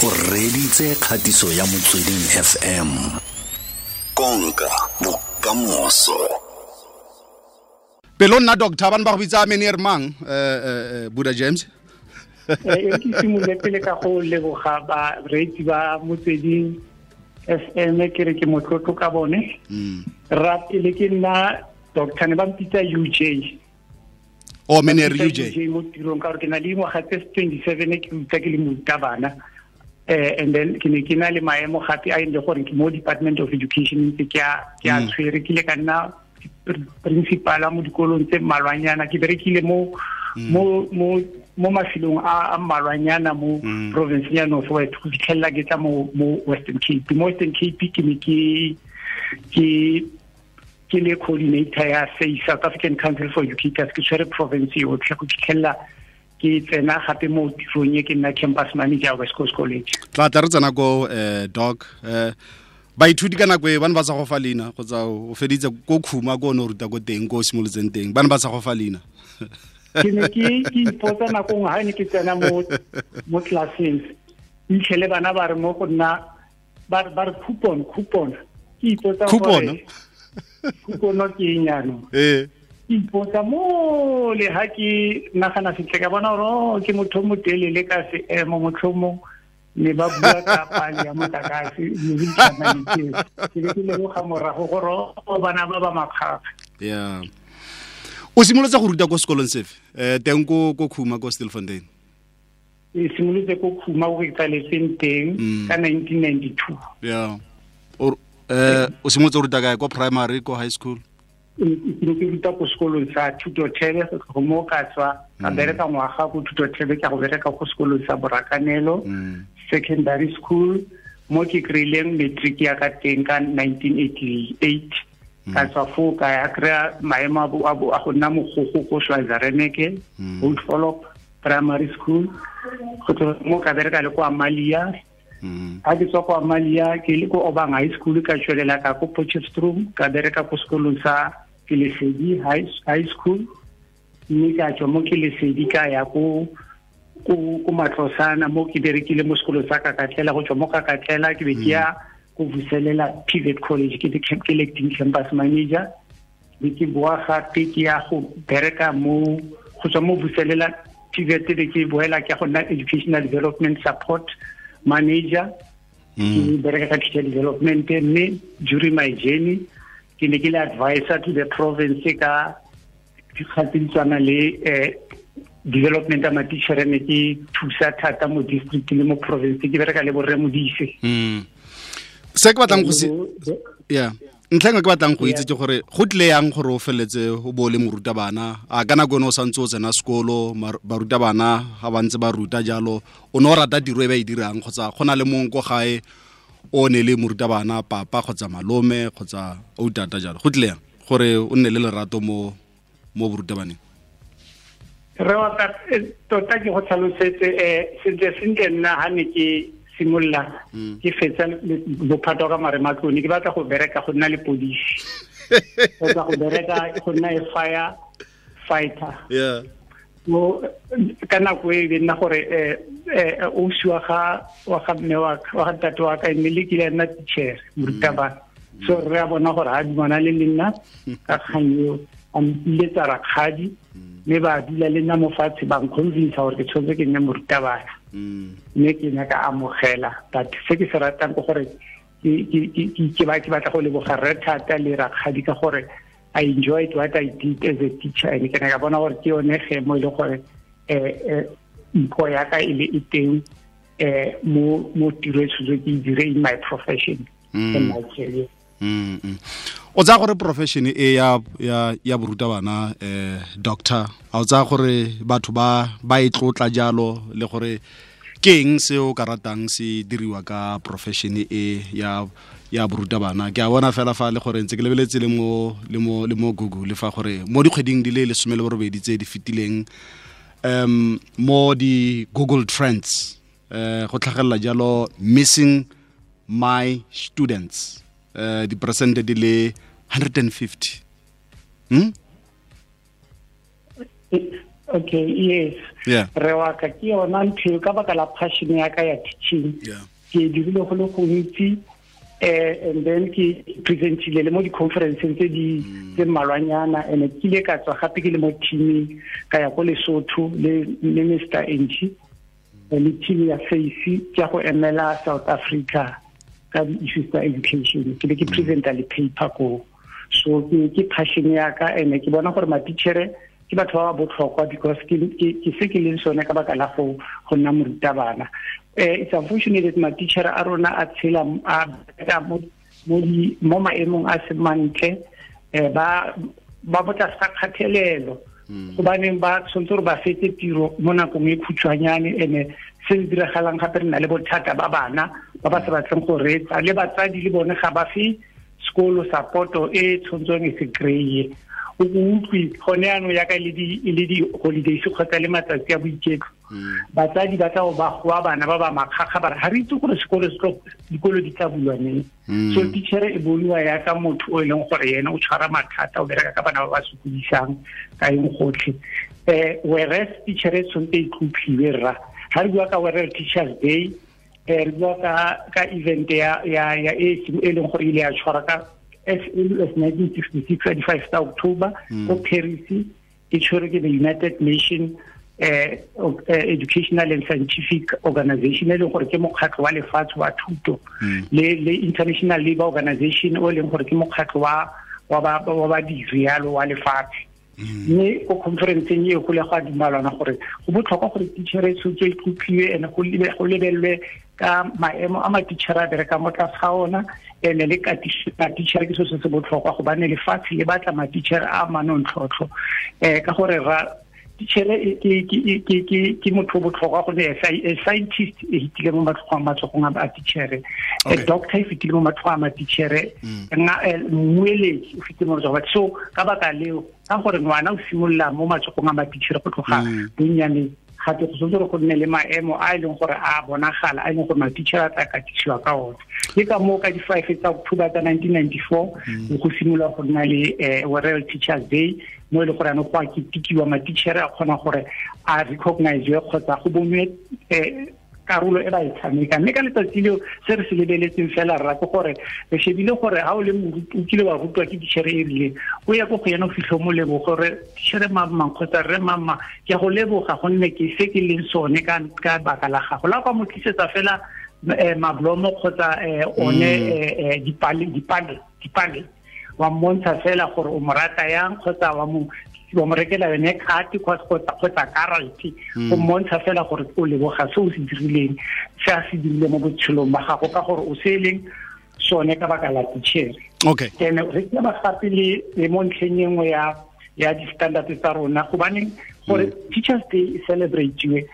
O reditse kgatiso ya Motsweding FM. Konka bokamoso. Pelo nna doctor ba ne ba go bitsa meneer mang, Buddha James? E ke simolole pele ka go leboga bareetsi ba Motsweding FM, ke re ke motlotlo ka bone. Ra pele ke nna doctor, ne ba mpitsa UJ. O meneer UJ. UJ mo tirong ka gore ke na le dingwaga tse 27 ke ruta ke le morutabana. And then ke ne ke na le maemo gape a e leng gore ke mo Department of Education ntse ke a tshwere, ke ile ka nna principal mo dikolong tse mmalwanyana, ke berekile mo mafelong a mmalwanyana mo province ya North West go fitlhelela ke tla mo Western Cape. Mo Western Cape ke ne ke le coordinator ya SACE, South African Council for Educators, ke tshwere province yotlhe go fitlhelela ke tsena gape mo tirong e, ke nna campus manager West Coast College. Tla tla re tsena ko doc, baithuti ka nako e ba ne ba sa go fa leina kgotsa o feditse ko Khuma, ko o ne o ruta ko teng, ko o simolotseng teng, ba ne ba sa go fa leina? Ke ne ke ipotsa nako nngwe ga ne ke tsena mo classeng, itlhele bana ba re mo go nna, ba re coupon, coupon. Ke ipotsa Coupon? Coupon ke eng jaanong? Ke ipotsa mo le ha ke nagana sentle, ka bona gore, oh, ke motho o motelele ka seemo, motlhomong ne ba bua ka pale ya motlakase le ke be ke lemoga morago gore, oh, bana ba ba makgakga. Ya, o simolotse go ruta ko sekolong sefe teng ko Khuma, ko Stilfontein? E simolotse ko Khuma, ko ke tsaletseng teng, ka 1992. Ya, o simolotse go ruta kae, ko primary, ko high school? Ke ne ke ruta ko sekolong sa Thutothebe. Go mo ka tswa ka bereka ngwaga ko Thutothebe, ke go bereka ko sekolong sa Borakanelo Secondary School, mo ke kry-ileng matric ya ka teng ka 1988. Ka tswa foo ka ya kry-a maemo a go nna mogogo ko Schweizer-Reneke Old Follow Primary School. Go tloga mo ka bereka le ko Amalia. Ha ke tswa ko Amalia, ke le ko Obang High School, ka tswelela ka ko Potchefstroom, ka bereka ko sekolong sa Kelesedi High School, mme ka tswa mo Kelesedi ka ya ko Matlosana, mo ke berekile mo sekolong sa Kakatlela. Go tswa mo Kakatlela ke be ke ya ko Vuselela TVET College, ke le acting campus manager, be ke boa gape ke ya go bereka mo, go tswa mo Vuselela TVET be ke boela ke ya go nna educational development support manager, ke bereka ka teacher development. Mme during my journey ke ne ke le advisor to the province ka dikgang tse di tshwana le development ya matichere, ne ke thusa thata mo district le mo province, ke bereka le borre Modise. Se ke batlang go se, ya, ntlha engwe ke batlang go itse ke gore go tlile yang gore o feletse o bo o le morutabana. A ka nako ene o santse o tsena sekolo, barutabana ga ba ntse ba ruta jalo, o ne o rata tiro e ba e dirang, kgotsa go na le mongwe ko gae o ne le morutabana, papa kgotsa malome kgotsa o tata jalo? Go tlile yang gore o nne le lerato mo borutabaneng? Re wa ka, tota ke go tlhalosetse sentle sentle. Nna ha ne ke simolola ke fetsa bophato ka marematlone, ke batla go bereka go nna le polisi kgotsa go bereka go nna e fire fighter. Mo ka nako e be nna gore ausi wa ga mme wa ga ntate wa ka e ne le kile ya nna teacher, morutabana, so re a bona gore ha dumana le nna ka kgang eo, a mpiletsa rakgadi, mme ba dula le nna mo fatshe, ba nconvince gore ke tshwanetse ke nne morutabana, mme ke ne ka amogela. But se ke se ratang ke gore ke batla go leboga rre thata le rakgadi ka gore I enjoyed what I did as a teacher, and ke ne ka bona gore ke yone ge mo e le gore mpho ya ka e le e teng mo tiro e tshwanetse ke e dire in my profession and my career. O tsaya gore profession e ya borutabana, doctor, a o tsaya gore batho ba e tlotla jalo, le gore ke eng se o ka ratang se diriwa ka profession e ya borutabana? Ke a bona fela fa le gore ntse ke lebeletse le mo Google fa gore mo dikgweding di le 18 tse di fetileng, mo di Google Trends go tlhagelela jalo "missing my students" diperesente di le 150. Okay, yes. Yeah. Re wa ka ke yona ntho ka baka la passion ya ka ya teaching. Yeah. Ke dirile go le gontsi, and then ke presentile le mo di-conferenceng tse di tse mmalwanyana, and ke ile ka tswa gape ke le mo teaming ka ya ko Lesotho le Mr. Enchi le team ya FACE ke go emela South Africa ka di-issues tsa education. Ke be ke presenta le paper ko. So ke passion ya ka, and ke bona gore matitjhere ke batho ba ba botlhokwa because ke se ke leng sone ka baka la go nna morutabana. It's unfortunate that matitjhere a rona a tshela a mo maemong a se mantle, ba botla sa kgathelelo, gobaneng ba tshwanetse gore ba fetse tiro mo nakong e khutshwanyane. Ene se se diragalang gape re na le bothata ba bana ba ba sa batleng go reetsa, le batsadi le bone ga ba fe sekolo support-o e tshwanetseng e se kry-e. O utlwe gone yaanong yaka e le di-holidays kgotsa le matsatsi a boiketlo, batsadi ba tla ba goa bana ba ba makgakga ba re ga re itse gore sekolo dikolo di tla bulwa neng. So teacher e boniwa yaka motho o e leng gore yena o tshwara mathata, o bereka ka bana ba ba sokodisang ka eng gotlhe. Whereas teacher e tshwanetse e tlotliwe rra. Ga re bua ka World Teachers Day, re bua ka event ya e e leng gore ile ya tshwara ka as early as 1966, 25 October, ko Paris, e tshwerwe ke the United Nations Educational and Scientific Organization, e leng gore ke mokgatlho wa lefatshe wa thuto, le International Labour Organization, o leng gore ke mokgatlho wa badiri yalo wa lefatshe. Mme ko conferenceng e go le go a dumalana gore go botlhokwa gore teacher e tshwanetse e tlotliwe and go lebelelwe ka maemo a matitjhere a bereka mo tlase ga ona, ene le matitjhere ke selo se se botlhokwa gobane lefatshe le batla matitjhere a manontlhotlho. Ka gore ra teacher ke motho o botlhokwa gonne a scientist e fetile mo matsogong a teacher, a doctor e fetile mo matsogong a matitjhere, mmueledi o fetile mo matsogong. So ka baka leo, ka gore ngwana o simolola mo matsogong a matitjhere go tloga bonnyaneng, gape go tshwanetse gore go nne le maemo a e leng gore a bonagala, a e leng gore matitjhere a tla katisiwa ka ona. Ke ka moo ka di-5 tsa October tsa 1994 go simolola go nna le World Teachers Day, mo e leng gore anong go a ketekiwa, matitjhere a kgona gore a recognize kgotsa go bonwe karolo e ba e tshameka. Mme ka letsatsi leo se re se lebeletseng fela rra ke gore re shebile gore ha o le moruti o kile wa rutwa ke teacher e rileng, o ya ko go yena o fitlhe mo leboge gore teacher mamang kgotsa rre mamma ke a go leboga gonne ke se ke leng sone ka baka la gago. La kwa mo tlisetsa fela mablomo kgotsa one dipale wa mmontsha fela gore o mo rata yang, kgotsa wa mo rekela yone khati kgotsa karate, o mmontsha fela gore o leboga se o se dirileng, se a se dirile mo botshelong ba gago, ka gore o se leng sone ka baka la teacher. Okay. Ene re ke ba gape le mo ntlheng e nngwe ya di-standard tsa rona, gobaneng gore Teachers Day e celebrate-iwe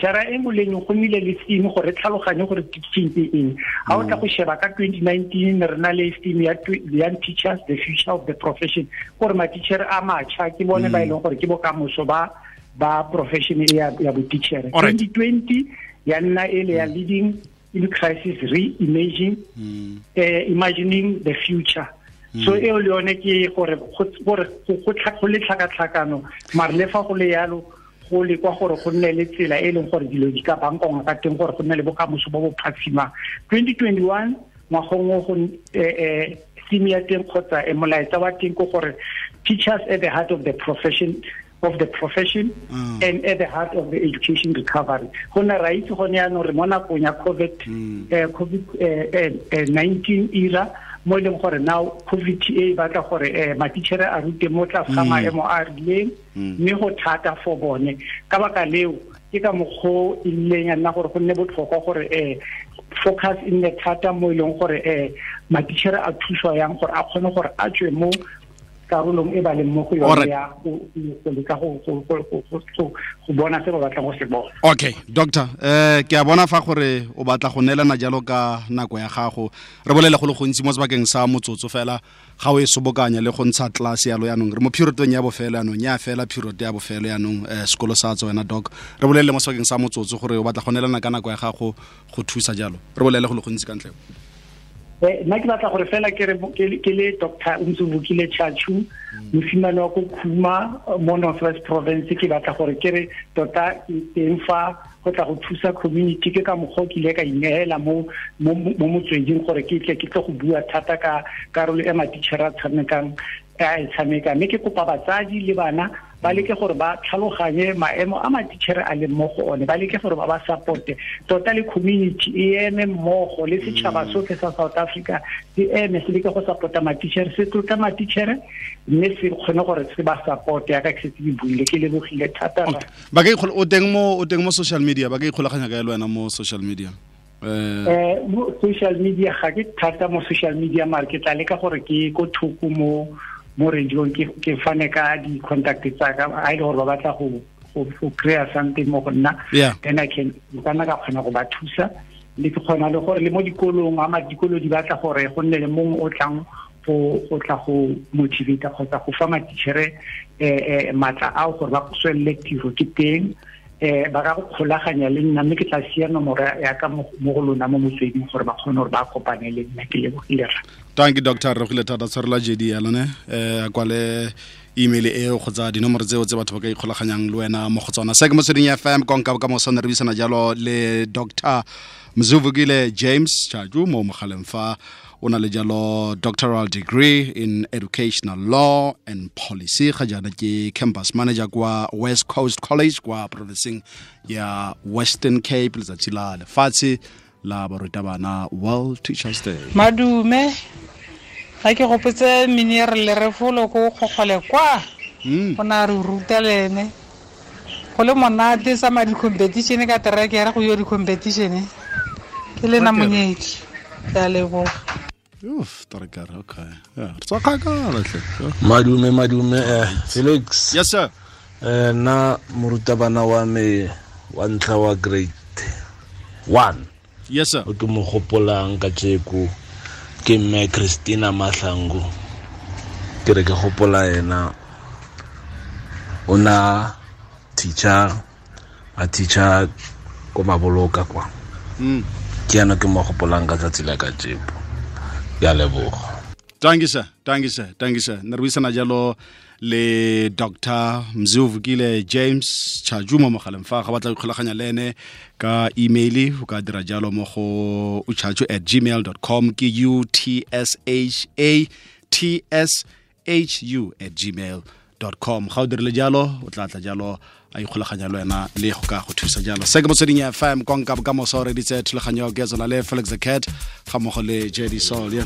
jara e nngwe le nngwe go nnile le theme gore re tlhaloganye gore teaching ke eng. Ha o tla go sheba ka 2019 re na le theme ya Young Teachers, the Future of the Profession, gore ma-teacher a matjha ke bone ba e leng gore ke bokamoso ba profession e ya bo-teacher. 2020 ya nna e le ya Leading in Crisis, Reimagining Imagining the Future. So eo le yone ke gore go le tlhakatlhakano, mare le fa go le yalo go le kwa gore go nne le tsela e leng gore dilo di ka bankongwa ka teng gore go nne le bokamoso bo bo phatsimang. 2021 ngwagong o go theme ya teng kgotsa molaetsa wa teng ke gore teachers at the heart of the profession and at the heart of the education recovery. Go nna ra itse gone yaanong re mo nakong ya COVID-19 era, mo e leng gore now COVID e batla gore matitjhere a rute mo tlase ga maemo a rileng, mme go thata for bone. Ka baka leo ke ka mokgwa e ileng ya nna gore go nne botlhokwa gore focus e nne thata mo e leng gore matitjhere a thuswa yang gore a kgone gore a tswe mo karolong e ba leng mo go yone ya go leka go bona se ba batlang go se bona. Okay, doctor, ke a bona fa gore o batla go neelana jalo ka nako ya gago. Re bolele go le gontsi mo sebakeng sa motsotso fela, ga o e sobokanya le go ntsha class yalo yanong. Re mo periodong ya bofelo yanong, ya fela period ya bofelo yanong, sekolo sa tswa wena doc. Re bolele mo sebakeng sa motsotso gore o batla go neelana ka nako ya gago go thusa jalo. Re bolele go le gontsi ka ntle. Nna ke batla gore fela ke re ke le Dr. Mzuvukile Tshatshu, mosimane wa ko Khuma mo North West Province, ke batla gore ke re tota ke teng fa go tla go thusa community. Ke ka mokgwa o ke ile ka ineela mo motsweding gore ke tle ke tle go bua thata ka karolo e matitšhere a tshamekang a e tshameka. Mme ke kopa batsadi le bana ba leke gore ba tlhaloganye maemo a matitšhere a leng mo go one, ba leke gore ba ba supporte tota, le community e eme mmogo le setšhaba sotlhe sa South Africa se eme se leke go support-a matitšhere, se tlotla matitšhere, mme se kgone gore se ba supporte yaka ke setse ke buile. Ke lebogile thata. Ba ka o teng mo social media, ba ka ikgolaganya ka le wena mo social media? Mo social media ga ke thata mo social media, mare ke tla leka gore ke ko thoko mo radiong ke fane ka di-contact tsa ka, a ile gore ba batla go kry-a something mo go nna, then I can kana ka kgona go ba thusa. Le ke kgona le gore le mo dikolong, ama dikolo di batla gore go nne le mongwe o tlang go tla go motivate kgotsa go fa matitšhere matla ao gore ba tswelele tiro, ke teng. Ba ka go kgolaganya le nna, mme ke tla sia nomoro ya ka mo go lona mo motsweding gore ba kgone gore ba kopane le nna. Ke lebogile rra. Thank you Doctor, re gile thata. Tshwarela JD ya lone a kwale email eo kgotsa dinomoro tseo tse batho ba ka ikgolaganyang le wena mo go tsona. Se ke Motsweding FM, konka bokamoso. Ne re buisana jalo le Dr. Mzuvukile James Tshatshu mo mogaleng fa o na le jalo doctoral degree in educational law and policy, ga jaana ke campus manager kwa West Coast College kwa provinceng ya Western Cape. Letsatsi la lefatshe la barutabana, World Teachers Day. Madume, ga ke gopotse miniere le refolo ko kgogole kwa go na re ruta le ene go le monate sa ma di-competition ka terekere go yo di-competition. Ke le na monyetli, ke a leboga. Oof, terekere, okay. Yeah, re tswa kgakala tle. Madume Felix. Yes sir. Nna morutabana wa me wa ntlha wa grade 1. Yes sir. O ke mo gopolang ka tjeko ke mme Christina Mahlangu. Ke re ke gopola ena, o na teacher, a teacher ko Maboloka kwa. Ke yana ke mo gopolang ka tsatsi la ka tjeko. Ke a leboga. Thank you sir, thank you sir, thank you sir. Ne re buisana jalo le Dr. Mzuvukile James Tshatshu mo mogaleng fa ga batla go ikgolaganya le ene ka email, o ka dira jalo mo go utshatshu@gmail.com, ke utshatshu@gmail.com. Ga o dirile jalo o tla tla jalo a ikgolaganya le wena le go ka go thusa jalo. Se ke Motsweding FM, konka bokamoso. Re ditse thulaganyo ke tsona le Felix the Cat ga mmogo le JD Saul.